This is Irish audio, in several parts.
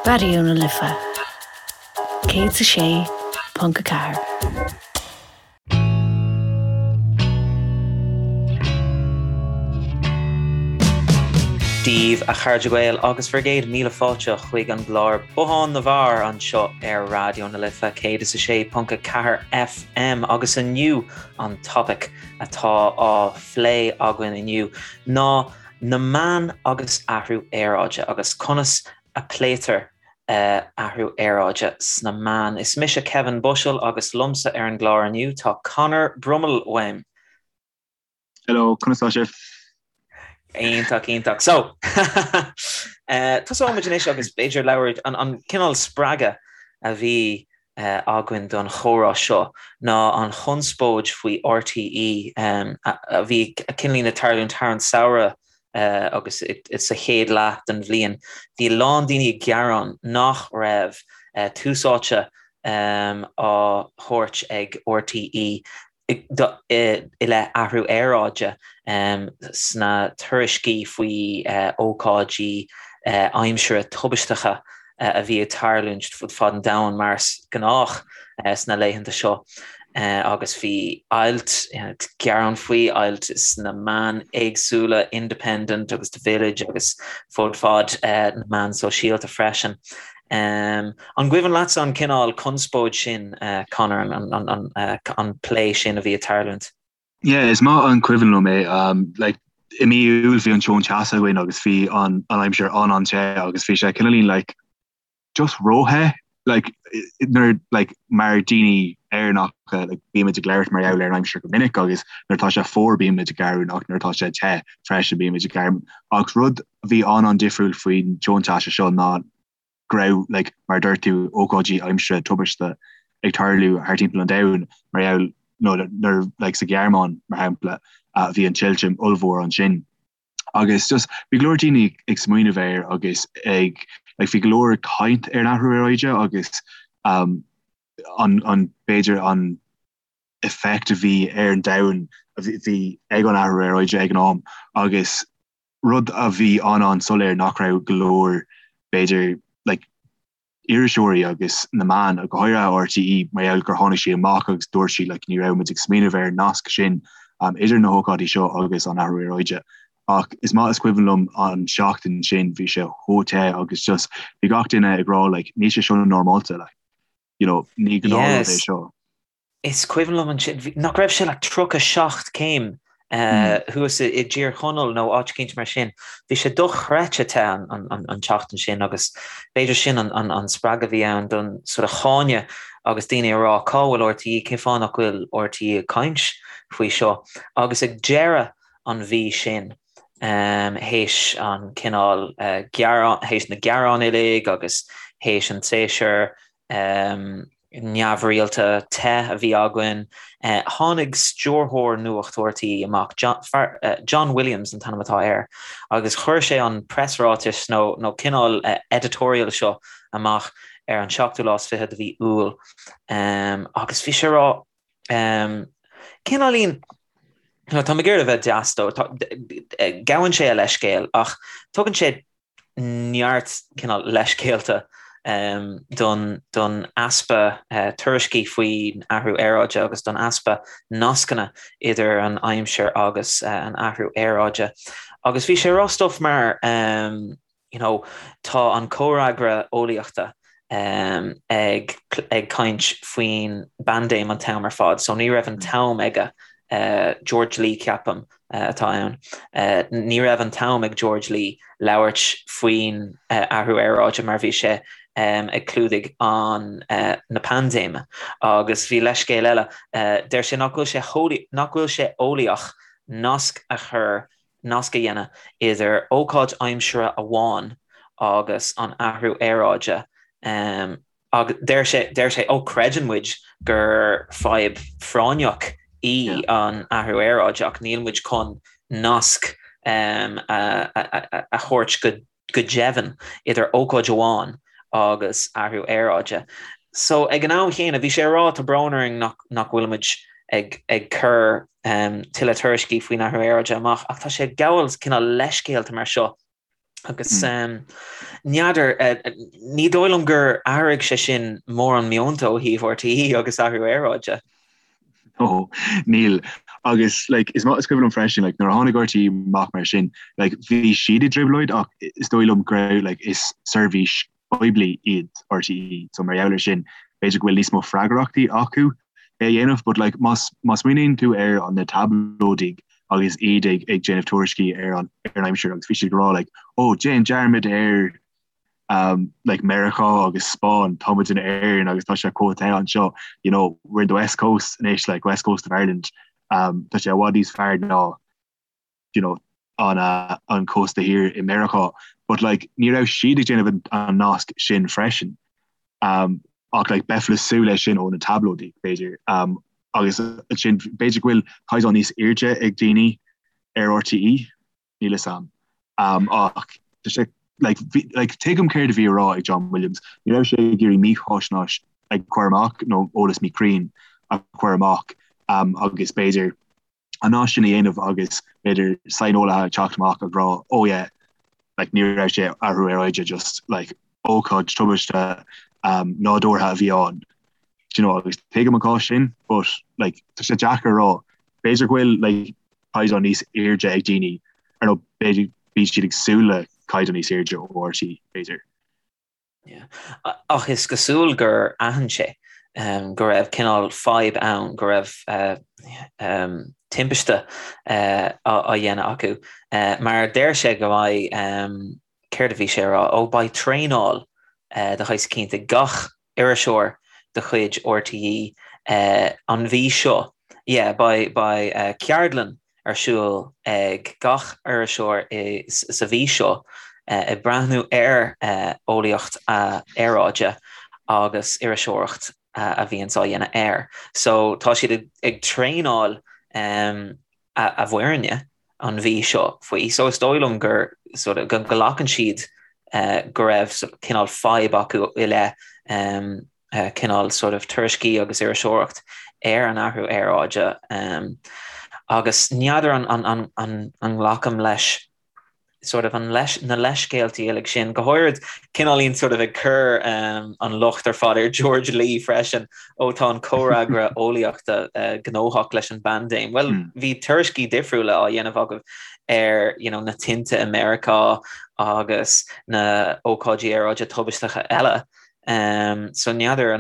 Raidió na Life 106.4. Dia daoibh a chairde Gael agus bhur gcéad míle fáilte chuig an gclár Bothán na bhFear anseo ar Raidió na Life 106.4 FM agus inniu an topaic atá á phlé againn inniu ná na meáin agus athrú aeráide agus conas a pléitear athrú aeráide sna meáin. Is mise Kevin Bushell agus liomsa ar an gclár inniu tá Conor Brummel uaim. Hello, conas tá sibh? Iontach, iontach. So, tosóidh muid anois agus b'fhéidir labhairt an cineál spreagadh a bhí againn don chomhrá seo ná an chonspóid faoi RTÉ a bhí cineáilín ag tarlúint thar an samhradh agus sa chéad leath den bhliain. Bhí a lán daoine ag gearán nach raibh tús áite á thabhairt ag RTÉ i leith athrú aeráide sna tuairiscí faoi ócáidí aimsire tubaisteacha a bhí ag tarlúint fud fad an domhain, mar is gnách sna laethanta seo, agus bhí ailt, gearán faoi, ailt sna meáin éagsúla, Independent agus The Village agus fud fad na meán sóisialta freisin. An gcuimhin leatsa an cineál conspóid sin, Conor, an plé sin a bhí ag tarlúint? Yeah, is maith an cuimhin liom é. Like, i mí Iúil bhí an tonn teasa againn agus bhí an aimsir an-an-te agus bhí sé cineáilín like, just róthe like, nuair like, mar daoine Éireannacha like, bímid ag labhairt mar gheall ar an aimsir go minic agus nuair atá sé fuar bímid ag gearán ach nuair atá sé te freisin bímid ag gearán. Ach rud a bhí an-an-difriúil faoin tonn teasa seo ná go raibh, like, mar a dúirt tú, ócáidí aimsire tubaiste ag tarlú thar timpeall an domhain mar gheall, nó nuair, like, sa Ghearmáin, mar shampla, bhí an tuilte ollmhór ansin. Agus just, bhí go leor daoine ag smaoineamh air agus ag, like, bhí go leor caint ar an athrú aeráide agus um, an, an, b'fhéidir an effect a bhí ar an domhan a bhí ag an athrú aeráide ag an am agus rud a bhí an-an-soiléir nach raibh go leor, b'fhéidir, like, iriseoirí agus na meáin, go háirithe RTÉ, mar gheall gur tháinig sí amach agus dúirt sí, like, ní raibh muid ag smaoineamh ar an nasc sin um, idir na hócáidí seo agus an athrú aeráide. Ach is maith is cuimhin liom an seachtain sin, bhí sé chomh te agus just bhí gach duine ag rá, like, níl sé seo normálta, like, you know, ní gnáthrud é seo. Is cuimhin liom ansin, nach raibh sé like 37 céim thuas i dTír Chonaill nó áit eicínt mar sin. Bhí sé dochreidte te an tseachtain sin agus b'fhéidir sin an spreagadh a bhí ann don sort of cháineadh agus daoine ag rá cá bhfuil RTÉ, cén fáth nach bhfuil RTÉ ag caint faoi seo? Agus ag deireadh an mhí sin, théis an cineál gearán, théis na gearán uilig agus théis an tséasúr neamhrialta te a bhí againn. Tháinig stiúrthóir Nuacht RTÉ amach, John Williams an t-ainm atá air, agus chuir sé an preasráiteas nó nó cineál editorial seo amach ar an seachtú lá is fiche de mhí Iúil agus bhí sé ag rá cineáilín tá mé ag iarraidh a bheith deas dó, gabhann sé a leithscéal ach tugann sé neart cineál leithscéalta don don easpa tuairiscí faoin athrú aeráide agus don easpa nascanna idir an aimsir agus an athrú aeráide. Agus bhí sé ag rá stuff mar you know tá an comhfhreagra eolaíochta ag ag caint faoin bpaindéim an t-am ar fad, so ní raibh an t-am aige George Lee ceapaim atá ann. Ní raibh an t-am ag George Lee labhairt faoin athrú aeráide mar bhí sé ag clúdaigh an na paindéime. Agus bhí leithscéal eile, deir sé nach bhfuil sé nach bhfuil sé eolaíoch nasc a chur, nasc a dhéanamh idir ócáid aimsire amháin agus an athrú aeráide. Agus deir sé, deir sé, ó creideann muid gur fadhb phráinneach í an athrú aeráide ach níl muid chun nasc a thabhairt go go deimhin idir ócáid amháin agus athrú aeráide. So ag an am chéanna bhí sé ag rá tá brón orainn nach nach bhfuil muid ag ag cur tuilleadh tuairiscí faoin athrú aeráide amach ach tá sé ag gabháil cineál leithscéalta mar seo. Agus n'fheadar, ní dóigh liom gur athraigh sé sin mórán meonta ó thaobh RTÉ agus athrú aeráide. Ó, níl. Agus like, is maith is cuimhin liom freisin, like, nuair a tháinig RTÉ amach mar sin, like, bhí siad i dtrioblóid ach is dóigh liom go raibh like, is seirbhís poiblí iad RTÉ, so mar gheall ar sin, b'fhéidir go bhfuil níos mó freagrachtaí acu é a dhéanamh, but like, má má smaoiníonn tú ar an na tablóidigh agus iad ag ag déanamh tuairiscí ar an ar an aimsir agus bhí siad ag rá like, oh, déan dearmad ar um, like Meiriceá agus Spáinn, tá muid in Éirinn agus tá sé chomh te anseo, you know, we're in the west coast anois, like west coast of Ireland, um, tá sé i bhfad níos fearr ná you know, an, uh, an cósta thiar i Meiriceá, but like, ní raibh siad ag déanamh an, an nasc sin freisin. Um, ach like, bheifeá ag súil leis sin ó na tablóidigh, b'fhéidir. Um, agus sin b'fhéidir go bhfuil caighdeán níos airde ag daoine ar RTÉ, níl fhios a'm. Um, ach tá sé like, bhí, like, tuigim céard a bhí á rá ag John Williams. Ní raibh sé ag iarraidh mífhaisnéis a chur amach nó eolas míchruinn a chur amach um, agus b'fhéidir an nasc sin a dhéanamh agus b'fhéidir saineolaithe ag teacht amach ag rá oh yeah like ní raibh sé athrú aeráide just like ócáid tubaiste um, nádúrtha a bhí ann. Do you know, agus tuigim an cás sin, but like tá sé deacair a rá. B'fhéidir go bhfuil like caighdeán níos airde ag daoine ar nó b'fhéidir bíonn siad ag súil le caighdeán níos airde ó RTÉ b'fhéidir. Ach is cosúil gur aithin sé go raibh cineál fadhb ann, go raibh timpiste á dhéanamh acu, mar deir sé go mbeidh, céard a bhí sé a rá, ó beidh traenáil de shaghas eicínt ag gach iriseoir de chuid RTÉ an mhí seo. Yeah, beidh ceardlann ar siúl ag gach iriseoir sa mhí seo ag breathnú ar eolaíocht aeráide agus iriseoireacht a bhíonns á dhéanamh air. So tá siad ag traenáil a bhfoirne an mhí seo faoi. So is dóigh liom gur sort of go nglacann siad go raibh cineál fadhb acu i leith cineál sort of tuairiscí agus iriseoireacht ar an athrú aeráide agus n'fheadar an nglacaim leis sort of an leis na leithscéaltaí uilig sin, go háirid cineáilín sort of ag cur an locht ar fad ar George Lee freisin, ó tá an comhfhreagra eolaíochta gnóthach leis an bpaindéim. Bhuel, bhí tuairiscí difriúla á dhéanamh agaibh ar you know, na tinte i Meiriceá agus na ócáidí aeráide tubaisteacha eile. So n'fheadar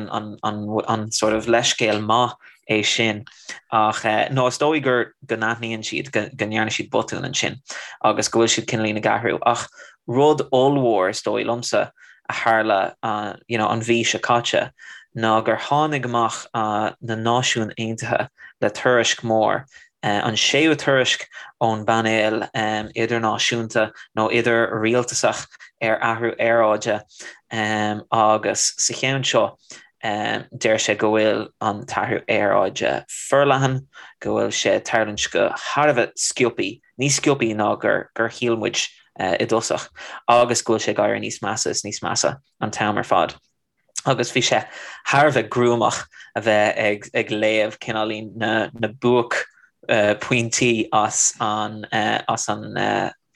an sort of leithscéal maith é sin ach nó is dóigh gur go n-aithníonn siad go ndearna siad botún ansin agus go bhfuil siad cineáilín ag athrú. Ach rud ollmhór is dóigh liomsa a tharla you know an mhí seo caite ná gur tháinig amach na Náisiúin Aontaithe le tuairisc mór an séú tuairisc ón bpainéal idirnáisiúnta nó idir-rialtasach ar athrú aeráide agus sa cheann seo deir sé go bhfuil an t-athrú aeráide forleathan, go bhfuil sé ag tarlúint go thar a bheith sciobthaí, níos sciobthaí ná gur shíl muid i dtosach agus go bhfuil sé ag éirí níos measa is níos measa an t-am ar fad. agus bhí sé thar a bheith gruamach a bheith ag ag léamh cineáilín na na buaicphointí as an as an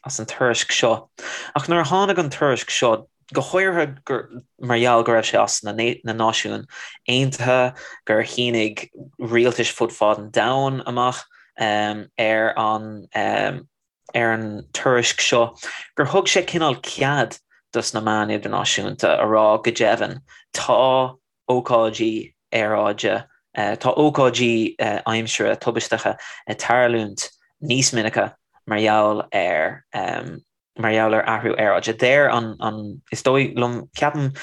as an tuairisc seo. Ach nuair a tháinig an tuairisc seo, go háirithe gur mar gheall go raibh sé as na na Náisiúin Aontaithe, gur shínigh rialtais fud fad an domhain amach ar an ar an tuairisc seo gur thug sé cineál cead dos na meáin idirnáisiúnta a rá go deimhin tá ócáidí aeráide, tá ócáidí aimsire tubaisteacha ag tarlúint níos minice mar gheall ar mar gheall ar athrú aeráide. Deir an, an, is dóigh liom, ceapaim,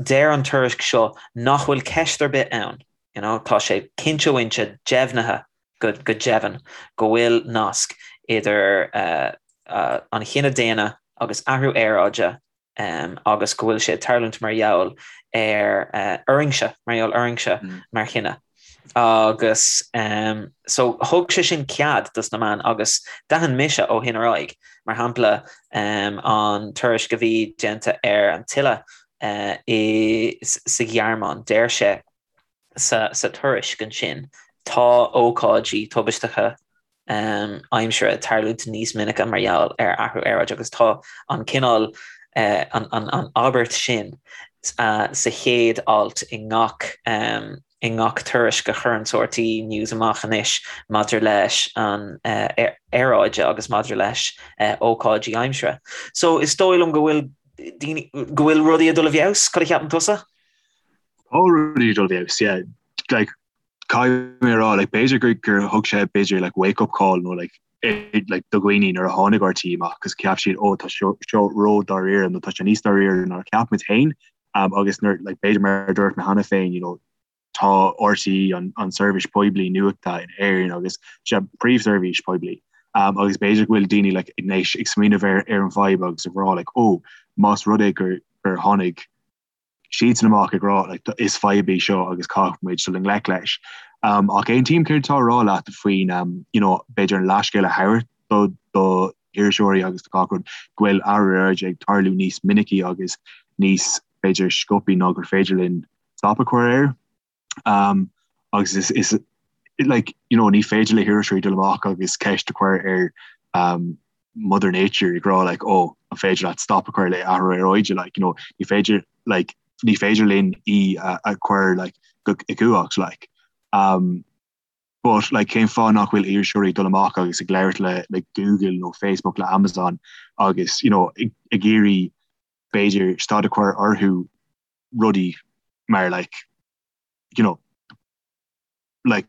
deir an tuairisc seo nach bhfuil ceist ar bith ann, you know, tá sé cinnte mhinnte deimhnithe go deimhin go bhfuil nasc idir an chine daonna agus athrú aeráide agus go bhfuil sé ag tarlúint mar gheall ar orainnse, mar gheall orainnse mar chine. Agus so thug sé sin cead dos na meáin agus d'aithin mise ó shin ar aghaidh, mar shampla an tuairisc a bhí déanta ar an tuile i sa Ghearmáin, deir sé, sa tuairisc ansin, tá ócáidí tubaisteacha. aimsire ag tarlúint níos minice mar gheall ar athrú aeráide agus tá an cineál an abairt sin sa chéad alt i ngach i ngach tuairisc a chuireann RTÉ News amach anois maidir leis an aeráide agus maidir leis ócáidí aimsire. So is dóigh liom go bhfuil daoine, go bhfuil rudaí ag dul i bhfeabhas, cad a cheapann tusa? Tá rudaí ag dul i bhfeabhas, yeah. Like, caithfidh mé a rá, like, b'fhéidir gur, gur thug sé b'fhéidir like wake up call nó like, eh, like do dhaoine nuair a tháinig RTÉ amach agus cheap siad, oh, tá seo, seo ró-dáiríre nó tá sé níos dáiríre ná cheap muid féin. Um, agus nuair, like, b'fhéidir mar a dúirt mé cheana féin, you know, tá RTÉ an, an seirbhís poiblí nuachta in Éirinn agus sé príomhsheirbhís poiblí. Um, agus b'fhéidir go bhfuil daoine like, anois ag smaoineamh ar, ar an bhfadhb agus ag rá like, oh, más rud é gur, gur tháinig siadsan amach ag rá like, is fadhb í seo agus caithfidh muid dul i ngleic leis. Um, ach aontaím céard atá á rá leat faoin um, you know, b'fhéidir an leithscéal a thabhairt do, do iriseoirí agus do gach rud go bhfuil athrú aeráide ag tarlú níos minicí agus níos b'fhéidir sciobthaí ná gur féidir linn stop a chur air. Um, agus is, is like, you know, ní féidir le hiriseoirí dul amach agus ceist a chur ar um, Mother Nature ag rá like, oh, an féidir leat stop a chur le athrú aeráide like, you know, ní féidir like, ní féidir linn í a, a chur like, go i gcumhacht like. Um, but like, cén fáth nach bhfuil iriseoirí dul amach agus ag labhairt le, le Google nó Facebook le Amazon agus you know, ag, ag iarraidh b'fhéidir stad a chur orthu rudaí mar like, you know, like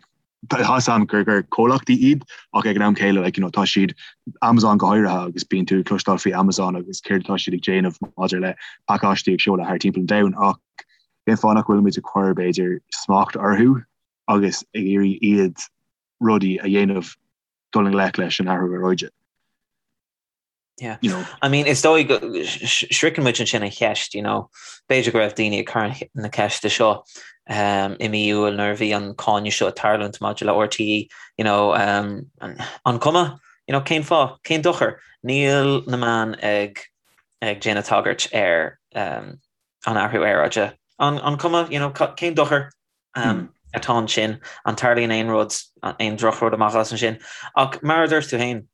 tá a fhios agam gur gur comhlachtaí iad ach ag an am céile like, you know, tá siad Amazon go háirithe agus bíonn tú ag cloisteáil faoi Amazon agus céard atá siad ag déanamh maidir le pacáistí ag seoladh thar timpeall an domhain ach cén fáth nach bhfuil muid ag cur b'fhéidir smacht orthu agus ag iarraidh iad rudaí a dhéanamh dul i ngleic leis an athrú aeráide. Yeah. You know. I mean, is dóigh go sroicheann muid ansin an cheist, you know, b'fhéidir go raibh daoine ag cur na ceiste seo um, i mí Iúil nuair a bhí an cáineadh seo ag tarlúint maidir le RTÉ, you know, um, an cuma, you know, cén fáth, cén dochar, níl na meáin ag ag déanamh tagairt ar um, an athrú aeráide. An, an cuma, you know, cén dochar um, hmm. atá ansin, an tarlaíonn aon rud, aon drochrud amach as ansin. Ach mar a dúirt tú féin,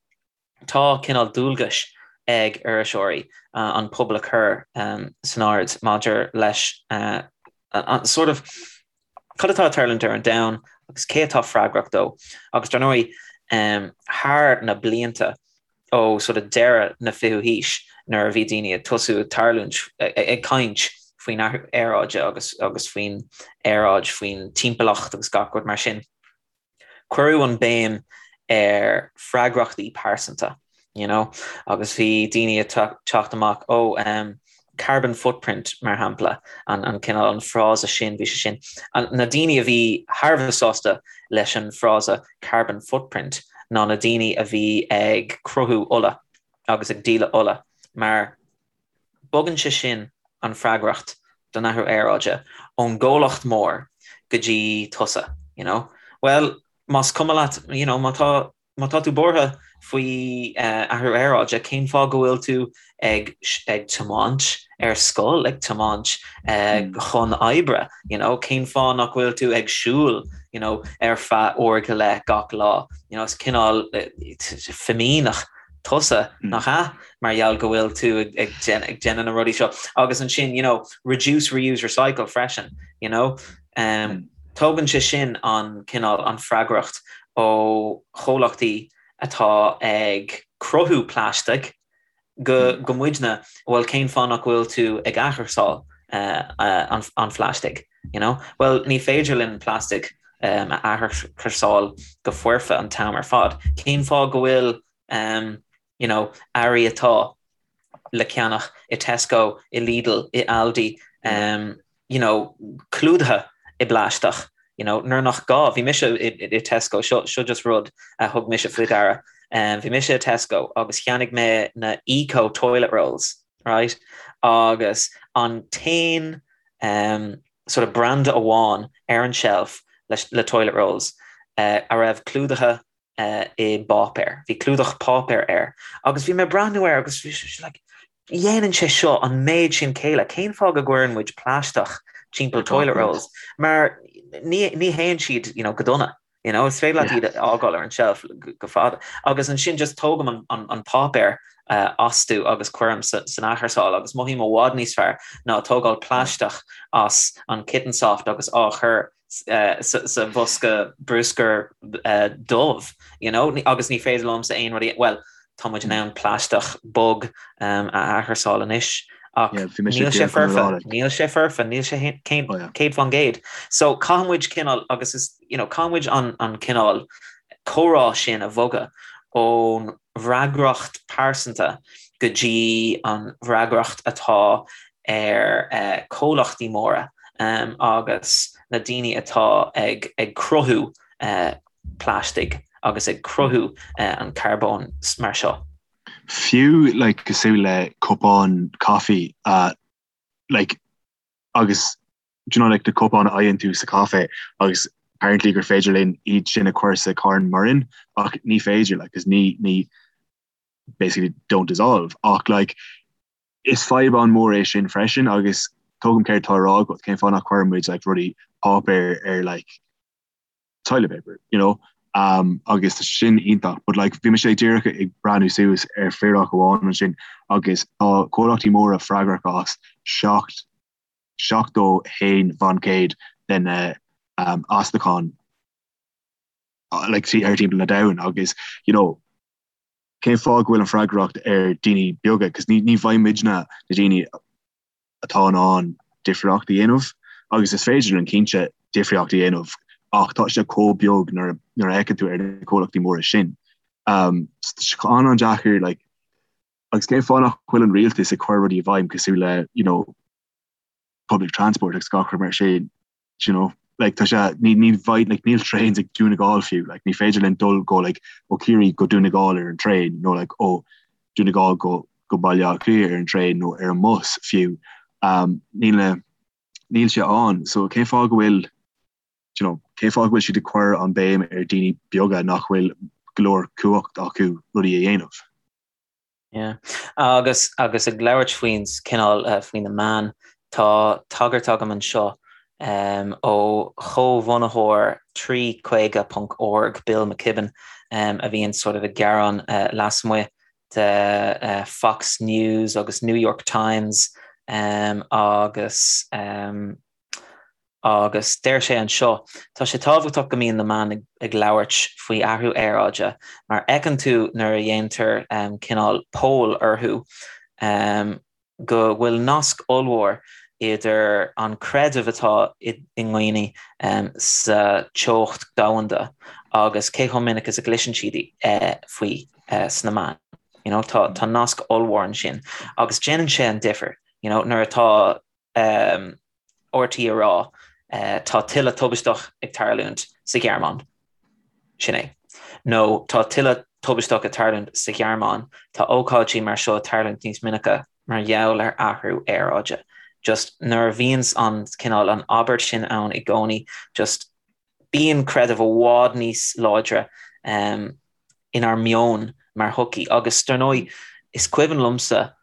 Tá cineál dualgais ag iriseoirí an pobal a chur san aird maidir leis an sort of cad atá ag tarlúint ar an domhan agus cé atá freagrach dó. Agus dar ndóigh, thar na blianta ó sort of deireadh na fichiú haois nuair a bhí daoine ag tosú ag tarlúint, ag caint faoin athrú aeráide agus agus faoin aeráid, faoin timpeallacht agus gach rud mar sin, Cuireadh an béim ar freagrachtaí pearsanta, you know, agus bhí daoine ag teacht amach, oh, um, carbon footprint, mar shampla, an, an cineál, an frása sin, bhí sé sin, an, na daoine a bhí thar a bheith sásta leis an frása carbon footprint ná na daoine a bhí ag cruthú ola agus ag díol ola, mar Bogann sé sin an freagracht don athrú aeráide ón gcomhlacht mór go dtí tusa, you know. Bhuel, más cuma leat, you know, má tá, má tá tú buartha faoi athrú aeráide, cén fáth go bhfuil tú ag, ag tiomáint ar scoil, ag tiomáint chun oibre, you know, cén fáth nach bhfuil tú ag siúl, you know, ar feadh uair go leith gach lá, you know, is cineál fimíneach tusa, nach ea? Mar gheall go bhfuil tú ag déanamh na rudaí seo. Agus ansin, you know, reduce, reuse, recycle freisin, you know. Um, tógann sé sin an cineál, an freagracht ó chomhlachtaí atá ag cruthú plaisteach go, go muidne, bhuel cén fáth nach bhfuil tú ag athchúrsáil uh, uh, an, an phlaistigh, you know? Well, ní féidir linn plastic um, a athchúrsáil go foirfe an t-am ar fad. Cén fáth go bhfuil um, you know, earraí atá le ceannach i Tesco, i Lidl, i Aldi, um, you know, clúdaithe i bplaisteach, you know, nuair nach gá. Bhí mise i, i, i Tesco, seo, seo just rud a thug mise faoi deara. Um, bhí mise i Tesco agus cheannaigh mé na eco toilet rolls, right? Agus an t-aon um, sort of branda amháin ar an shelf le, le toilet rolls uh, a raibh clúdaithe i bpáipéar. Bhí clúdach páipéir air agus bhí mé ag breathnú air agus bhí sé like, dhéanann sé seo an méid sin céille, cén fáth go gcuireann muid plaisteach timpeall toilet rolls? Mar ní, ní théann siad you know, go dona. You know, is féidir leat iad a fhágáil ar an shelf go fada. Agus ansin just tógaim an, an, an páipéar uh, astu agus cuirim sa, san athchúrsáil agus mothaím i bhfad níos fearr ná tógáil plaisteach as an Kitten Soft agus á chur uh, sa, sa bhosca bruscair uh, dubh, you know, agus ní féidir liomsa aon rud, well, Tá muid in ann plaisteach bog a athchúrsáil anois ach níl sé foirfe, níl sé foirfe, níl sé 100%. So caithfidh muid cineál, agus is, you know, caithfidh muid an an cineál comhrá sin a bhogadh ón bhfreagracht pearsanta go dtí an bhfreagracht atá ar comhlachtaí móra agus na daoine atá ag ag cruthú plaistigh agus ag cruthú an carbóin mar seo. Fiú like cosúil le cupán caife uh, like agus do you know like na cupáin a fhaigheann tú sa caife agus apparently gur féidir linn iad sin a chur sa carn maraon ach ní féidir like 'cause ní ní basically don't dissolve ach like is fadhb an-mhór é sin freisin agus tuigim céard tá á rá agat cén fáth nach cuireann muid like rudaí páipéir ar like toilet paper, you know, um, agus tá sin iontach, but like bhí mise díreach ag breathnú suas ar figiúr amháin ansin agus tá comhlachtaí móra freagrach as 7 71% de na um, astacháin like ar timpeall na domhan agus you know, cén fáth go bhfuil an freagracht ar daoine beaga, cos ní ní bheidh muidne na daoine atá in ann difríocht a dhéanamh agus is féidir linn cinnte difríocht a dhéanamh ach tá sé chomh beag nuair a fhéachann tú ar na comhlachtaí móra sin. Um, an-an-deacair like, agus cén fáth nach bhfuil an rialtas ag cur rudaí i bhfeidhm cosúil le you know, public transport agus gach rud mar sin. you know, like tá sé ní ní bheidh like níl trains ag Dún na nGall fiú like ní féidir linn dul go like ó Ciarraí go Dún na nGall ar an traein nó like ó Dún na nGall go go Baile Átha Cliath ar an traein nó ar an mbus fiú um, níl na níl sé ann so cén fáth go bhfuil you know, cén fáth go bhfuil siad ag cur an béim ar daoine beaga nach bhfuil go leor cumhacht acu rudaí a dhéanamh. Yeah. Agus agus ag labhairt faoin cineál faoi na meáin, tá tagairt agam anseo um, ó chomhbhunaitheoir 350.org, Bill McKibben, um, a bhíonn sort of ag gearán uh, lasmuigh de uh, Fox News agus New York Times um, agus um, Agus deir sé anseo, tá sé tábhachtach go mbíonn na meáin ag labhairt faoi athrú aeráide mar fheiceann tú nuair a dhéantar cineál poll orthu go bhfuil nasc ollmhór idir an creideamh atá i ndaoine sa teocht domhanda agus cé chomh minic is a gcloiseann siad faoi sna meáin. You know, tá tá nasc ollmhór ansin agus déanann sé an difear, you know, nuair atá RTÉ ag rá tá tuile tubaisteach ag tarlúint sa Ghearmáin. Sin é. Nó tá tuile tubaisteach ag tarlúint sa Ghearmáin, tá ócáidí mar seo ag tarlúint níos minice mar gheall ar athrú aeráide. Just nuair a bhíonns an cineál an abairt sin ann i gcónaí, just bíonn creideamh i bhfad níos láidre inár meon mar shochaí. Agus dar ndóigh, is cuimhin liomsa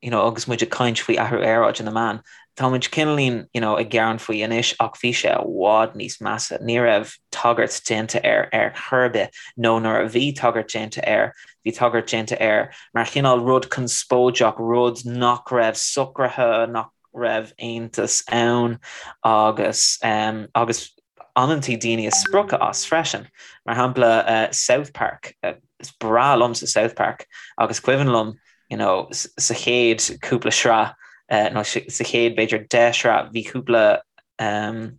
you know, agus muid ag caint faoi athrú aeráide na meáin, tá muid cineáilín, you know, ag gearán faoi anois ach bhí sé i bhfad níos measa. Ní raibh tagairt déanta air ar chor ar bith, nó nuair a bhí tagairt déanta air, bhí tagairt déanta air mar chineál rud conspóideach, rud nach raibh socraithe, nach raibh aontas ann agus, um, agus amantaí daoine ag spochadh as freisin. Mar shampla, uh, South Park, uh, is breá liomsa South Park agus cuimhin liom you know, sa chéad cúpla sraith uh, nó sa chéad b'fhéidir 10 sraith bhí cúpla um,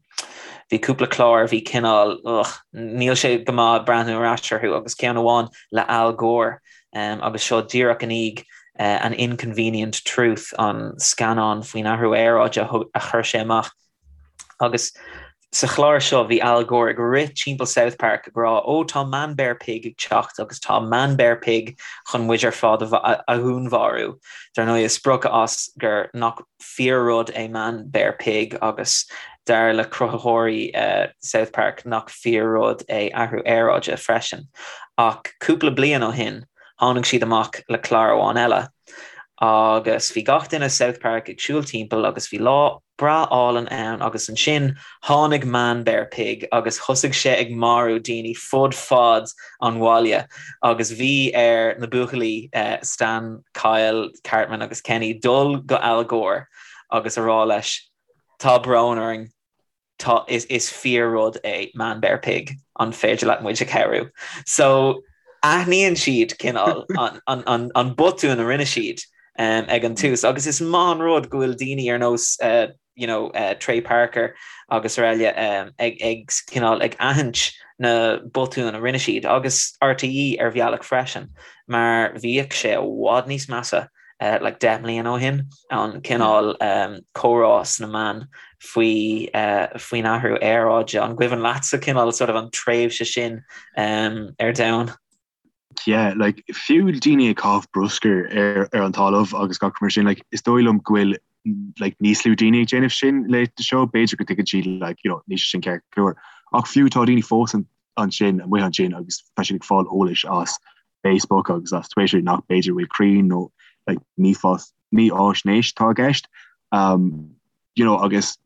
bhí cúpla clár bhí cineál ugh, níl sé go maith breathnú ar ais orthu agus ceann amháin le Al Gore um, agus seo díreach i ndiaidh uh, an Inconvenient Truth an scannán faoin athrú aeráide a chuir sé amach Agus sa chlár seo bhí Al Gore ag rith timpeall South Park ag rá ó tá Man Bear Pig ag teacht agus tá Man Bear Pig chun muid ar fad a dhúnmharú. Dar ndóigh ag spochadh as gur nach fíor rud é Man Bear Pig agus dar le cruthaitheoirí South Park nach fíor rud é athrú aeráide freisin. Ach cúpla bliain ó shin tháinig siad amach le clár amháin eile. Agus bhí gach duine i South Park ag siúl timpeall agus bhí lá breá álainn ann agus ansin tháinig Man Bear Pig agus thosaigh sé ag marú daoine fud fad an bhaile agus bhí ar na buachaillí Stan, Kyle, Cartman agus Kenny dul go Al Gore agus a rá leis tá brón orainn Tá, is, is fíor-rud é Man Bear Pig, an féidir leat muid a chabhrú? So, aithníonn siad cineál an, an, an, an botún a rinne siad um, ag an tús, agus is maith an rud go bhfuil daoine ar nós uh, you know, uh, Trey Parker agus araile um, ag, ag cineál ag aithint na botúin a rinne siad, agus RTÉ ar bhealach freisin, mar bhíodh sé i bhfad níos measa like 10 mbliana ó shin, an cineál comhrá sna meáin faoi faoin athrú aeráide. An gcuimhin leatsa cineál sort of an tréimhse sin ar domhan? Yeah, like fiú daoine ag caitheamh bruscar ar ar an talamh agus gach mar sin, like is dóigh liom go bhfuil like níos lú daoine ag déanamh sin laethanta seo, b'fhéidir go dtuigeann siad like you know níl sé sin ceart go leor. Ach fiú tá daoine fós ansin amuigh ansin agus tá siad ag fáil eolais as Facebook agus as Twitter nach b'fhéidir bhfuil cruinn nó like mífháisnéis atá i gceist. Um, you know, agus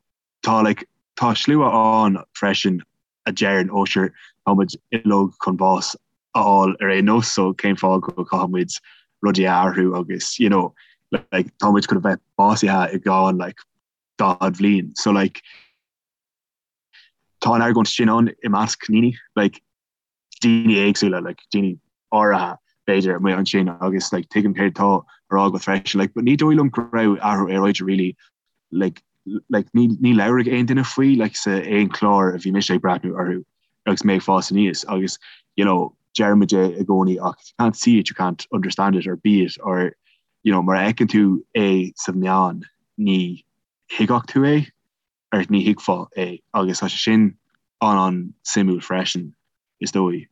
tá like, tá slua ann freisin a deireann ó sure tá muid uilig chun bás a fháil ar aon nós, so cén fáth go gcaithfidh muid rudaí a athrú agus you know, like, tá muid chun a bheith básaithe i gceann like, 40 bhliain. So like, tá an argóint sin ann i measc daoine, like, daoine éagsúla, like, daoine áirithe b'fhéidir amuigh ansin agus like, tuigim céard atá á rá agat freisin, like, but ní dóigh liom go raibh athrú aeráide really like, like, ní, ní labhraigh aon duine faoi like, sa aon chlár a bhí mise ag breathnú orthu agus mé ag fás aníos agus you know, deirimid é i gcónaí ach if you can't see it, you can't understand it or be it or you know, mura fheiceann tú é sa mheán ní thuigfeadh tú é. or ní thuigfeá é agus tá sé sin an-an-suimiúil freisin, is dóigh.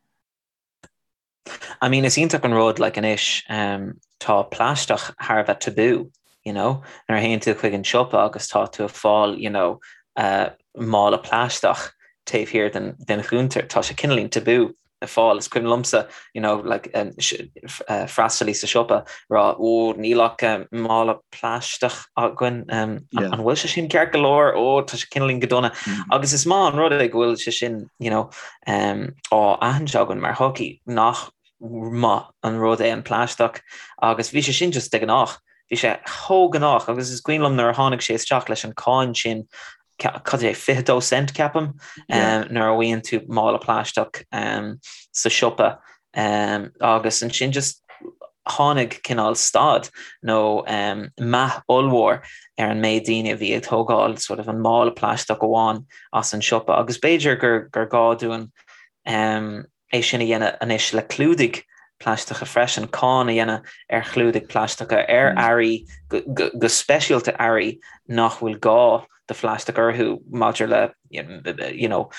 I mean, is iontach an rud, like, anois, um, tá plaisteach thar a bheith tabú, you know, nuair a théann tú chuig an siopa agus tá tú ag fáil, you know, uh, mála plaisteach taobh thiar den, den chuntar, tá sé cineáilín tabú. le fáil. Is cuimhin liomsa, you know, like, freastalaí sa siopa rá, ó, níl ach mála plaisteach againn, an bhfuil sé sin ceart go leor? Ó, tá sé cineáilín go dona. Agus is maith an rud é go bhfuil sé sin, you know, á aithint againn mar shochaí nach maith an rud é an plaisteach agus bhí sé sin just de ghnách. Bhí sé chomh gnách agus is cuimhin liom nuair a tháinig sé isteach leis an cáin sin cad é, 22 cent ceapaim, nuair a bhfaigheann tú mála plaisteach sa siopa agus ansin just tháinig cineál stad nó meath ollmhór ar an méid daoine a bhí ag tógáil sort of an mála plaisteach amháin as an siopa agus b'fhéidir gur gur gá dúinn é sin a dhéanamh anois le clúdaigh plaisteacha freisin, cáin a dhéanamh ar chlúdaigh plaisteacha, ar earraí, go speisialta earraí nach bhfuil gá do phlaisteach orthu maidir le you know,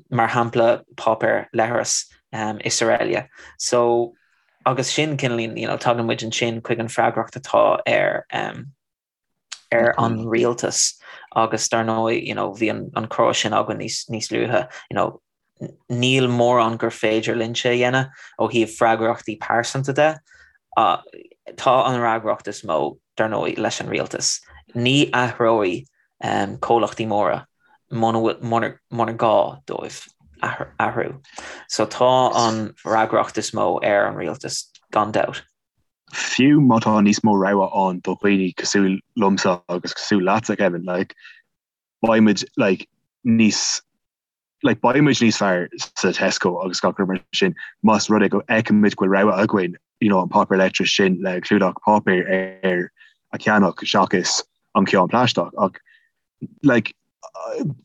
mar shampla páipéar leithreas is araile. So agus sin cineáilín, you know, tagann muid ansin chuig an freagracht atá ar ar an rialtas agus dar ndóigh you know, bhí an, an comhrá sin againn níos, níos luaithe you know, níl mórán gur féidir linnse a dhéanamh ó thaobh freagrachtaí pearsanta de. Uh, tá an fhreagracht is mó dar ndóigh leis an rialtas. Ní athróidh um, comhlachtaí móra muna gá dóibh athrú. So tá an fhreagracht is mó ar an rialtas gan dabht. Fiú má tá níos mó rogha ann do dhaoine cosúil liomsa agus cosúil leatsa, Kevin, like, beidh muid, like, níos, like, beidh muid níos fearr sa Tesco agus gach rud mar sin más rud é go bhfeicimid go bhfuil rogha againn, you know, an páipéar leithris sin le clúdach páipéir air a cheannach seachas an ceann plaisteach. Ach like,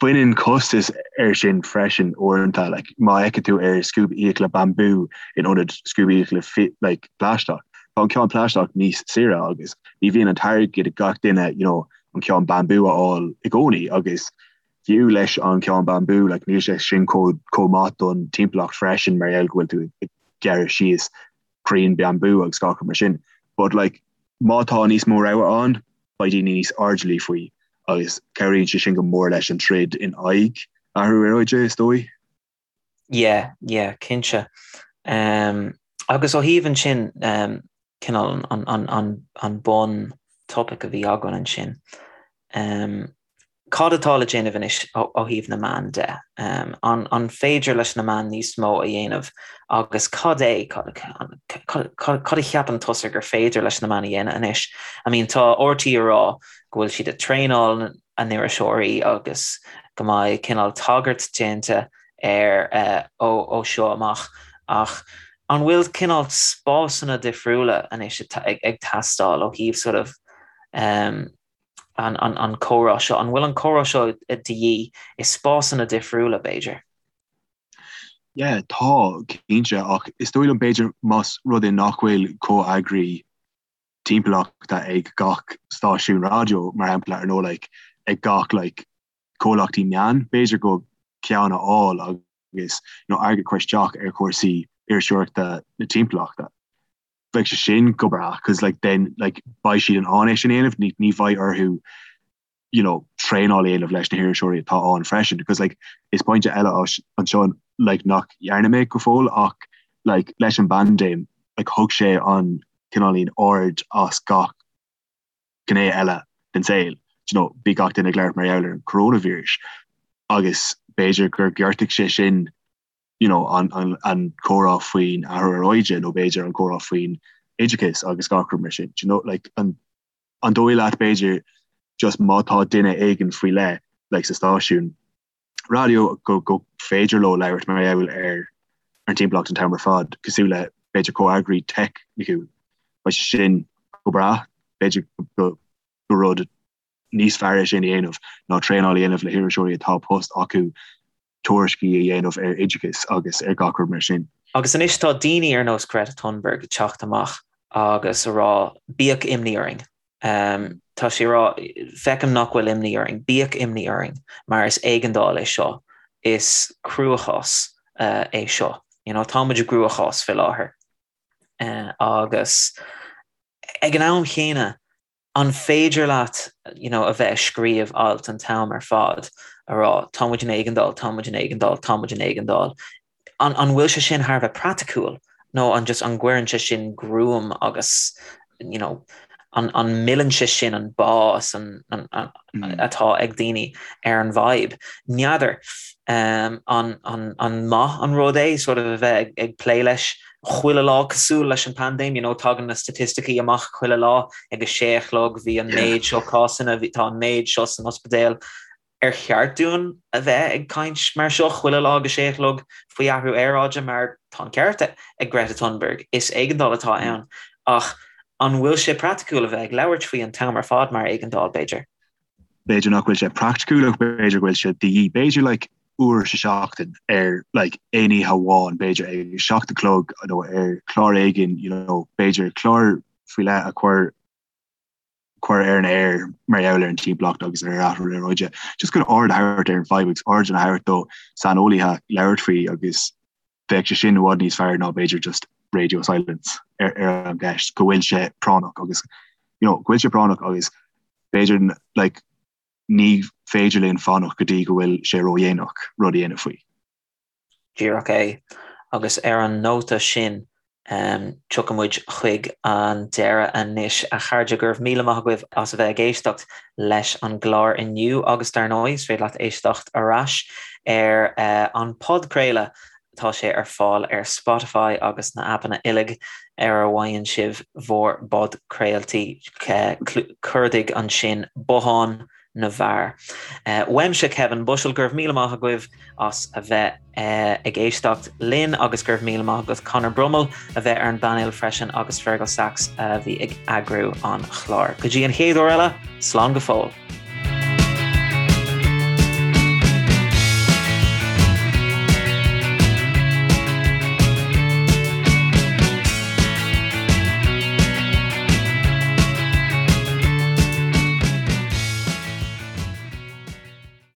baineann costas air sin freisin uaireanta, like, má fheiceann tú ar scuab fhiacla bambú in ionad scuab fhiacla like, plaisteach, tá an ceann plaisteach níos saoire agus ní bhíonn an t-airgead ag gach duine you know, an ceann bambú a fháil i gcónaí agus fiú leis an ceann bambú like, níl sé sin chomh maith don timpeallacht freisin mar gheall go bhfuil tú ag gearradh síos crainn bambú agus gach rud mar sin. But like, má tá níos mó rogha ann, beidh daoine níos airdeallaí faoi agus cabhraíonn sé sin go mór leis an troid in aghaidh athrú aeráide, is dóigh. Yeah, yeah, cinnte. Um, agus ó thaobh ansin, um, cineál an bun topaic a bhí againn ansin. Cad atá le déanamh anois ó thaobh na meán de? An féidir leis na meáin níos mó a dhéanamh agus cad é, cad a cheapann tusa gur féidir leis na meáin a dhéanamh anois? I mean tá RTÉ ag rá go bhfuil siad ag traenáil a n-iriseoirí agus go mbeidh cineál tagairt déanta air ó seo amach ach an bhfuil cineál spásanna difriúla anois ag teastáil ó thaobh sort of an comhrá seo? An bhfuil an comhrá seo de dhíth i spásanna difriúla b'fhéidir? Yeah, tá, cinnte, ach is dóigh liom b'fhéidir más rud é nach bhfuil comheagraí timpeallachta ag gach stáisiún raidió, mar shampla, ar nó like ag gach like comhlachtaí meán, b'fhéidir go ceann a fháil agus you know airgead a chur isteach ar chúrsaí iriseoireachta na timpeallachta. Bheadh sé sin go breá cos like then like beidh siad in ann é sin a dhéanamh, ní ní bheidh orthu you know traenáil a dhéanamh leis na hiriseoirí atá ann freisin because like is pointe eile anseo like nach dhearna mé go fóill ach like leis an bpaindéim like thug sé an cineáilín aird as gach gné eile den saol. Do you know, bhí gach duine ag labhairt mar gheall ar an coronavirus agus b'fhéidir gur ghortaigh sé sin you know, an, an, an comhrá faoin athrú aeráide nó b'fhéidir an comhrá faoin oideachas agus gach rud mar sin. Do you know, like, an, an dóigh leat b'fhéidir just má tá duine éigin faoi leith like, sa stáisiún raidió go, go féidir leo labhairt mar gheall ar an timpeallacht an t-am ar fad, cosúil le b'fhéidir comheagraí teicniúil. Beidh sé sin go breá, b'fhéidir go, go rud níos fearr é sin a dhéanamh ná traenáil a dhéanamh le hiriseoirí atá post acu tuairiscí a dhéanamh ar oideachas agus ar gach rud mar sin. Agus anois tá daoine ar nós Greta Thunberg ag teacht amach agus a rá bíodh imní orainn. Tá sí ag rá feicim nach bhfuil imní orainn, bíodh imní orainn mar is éigeandáil é seo, is cruachás é seo. You know, tá muid i gcruachás faoi láthair. Agus ag an am chéanna, An féidir leat you know, a bheith ag scríobh alt an t-am ar fad a rá tá muid in éigeandáil, tá muid in éigeandáil, tá muid in éigeandáil. An, an bhfuil sé sin thar a bheith praiticiúil nó an just an gcuireann sé sin gruaim agus you know, an, an milleann sé sin an bás an, an, an, mm. atá ag daoine ar an bhfadhb. N'fheadar um, an, an, an maith an rud é sort of a bheith ag, ag plé leis chuile lá cosúil leis an paindéim, you know, tagann na staitisticí amach chuile lá ag a sé a chlog, bhí an méid seo cásanna, bhí tá an méid seo san ospidéal. Ar cheart dúinn a bheith ag caint mar seo chuile lá ag a sé a chlog faoi athrú aeráide mar tá an ceart ag Greta Thunberg, is éigeandáil atá ann. Ach an bhfuil sé praiticiúil a bheith ag labhairt faoi an t-am ar fad mar éigeandáil, b'fhéidir? B'fhéidir nach bhfuil sé praiticiúil ach b'fhéidir go bhfuil sé de dhíth. B'fhéidir like uair sa seachtain ar like aon oíche amháin b'fhéidir ag 7 a chlog nó ar chlár éigin you know b'fhéidir clár faoi leith a chur chur ar an aer mar gheall ar an timpeallacht agus ar athrú aeráide. Just chun aird a thabhairt ar an bhfadhb agus aird a thabhairt do saineolaithe labhairt faoi agus bheadh sé sin i bhfad níos fearr ná b'fhéidir just radio silence ar ar an gceist go bhfuil sé práinneach agus you know, go bhfuil sé práinneach agus b'fhéidir like, ní féidir linn fanacht go dtí go bhfuil sé ródhéanach rud a dhéanamh faoi. Díreach é. Agus ar an nóta sin, tiocfaidh muid chuig an deireadh anois, a chairde. Go raibh míle maith agaibh as a bheith ag éisteacht leis an gclár inniu agus dar ndóigh, is féidir leat éisteacht ar ais ar an podchraoladh. Tá sé ar fáil ar Spotify agus na aipeanna uilig ar a bhfaigheann sibh bhur bpodchraoltaí. Cuardaigh ansin Bothán na bhFear. Uaimse Kevin Bushell, go raibh míle maith agaibh as a bheith ag éisteacht linn agus go raibh míle maith agat Conor Brummel a bheith ar an bpainéal freisin agus Fergal Sachs a bhí ag eagrú an chláir. Go dtí an chéad uair eile, slán go fóill.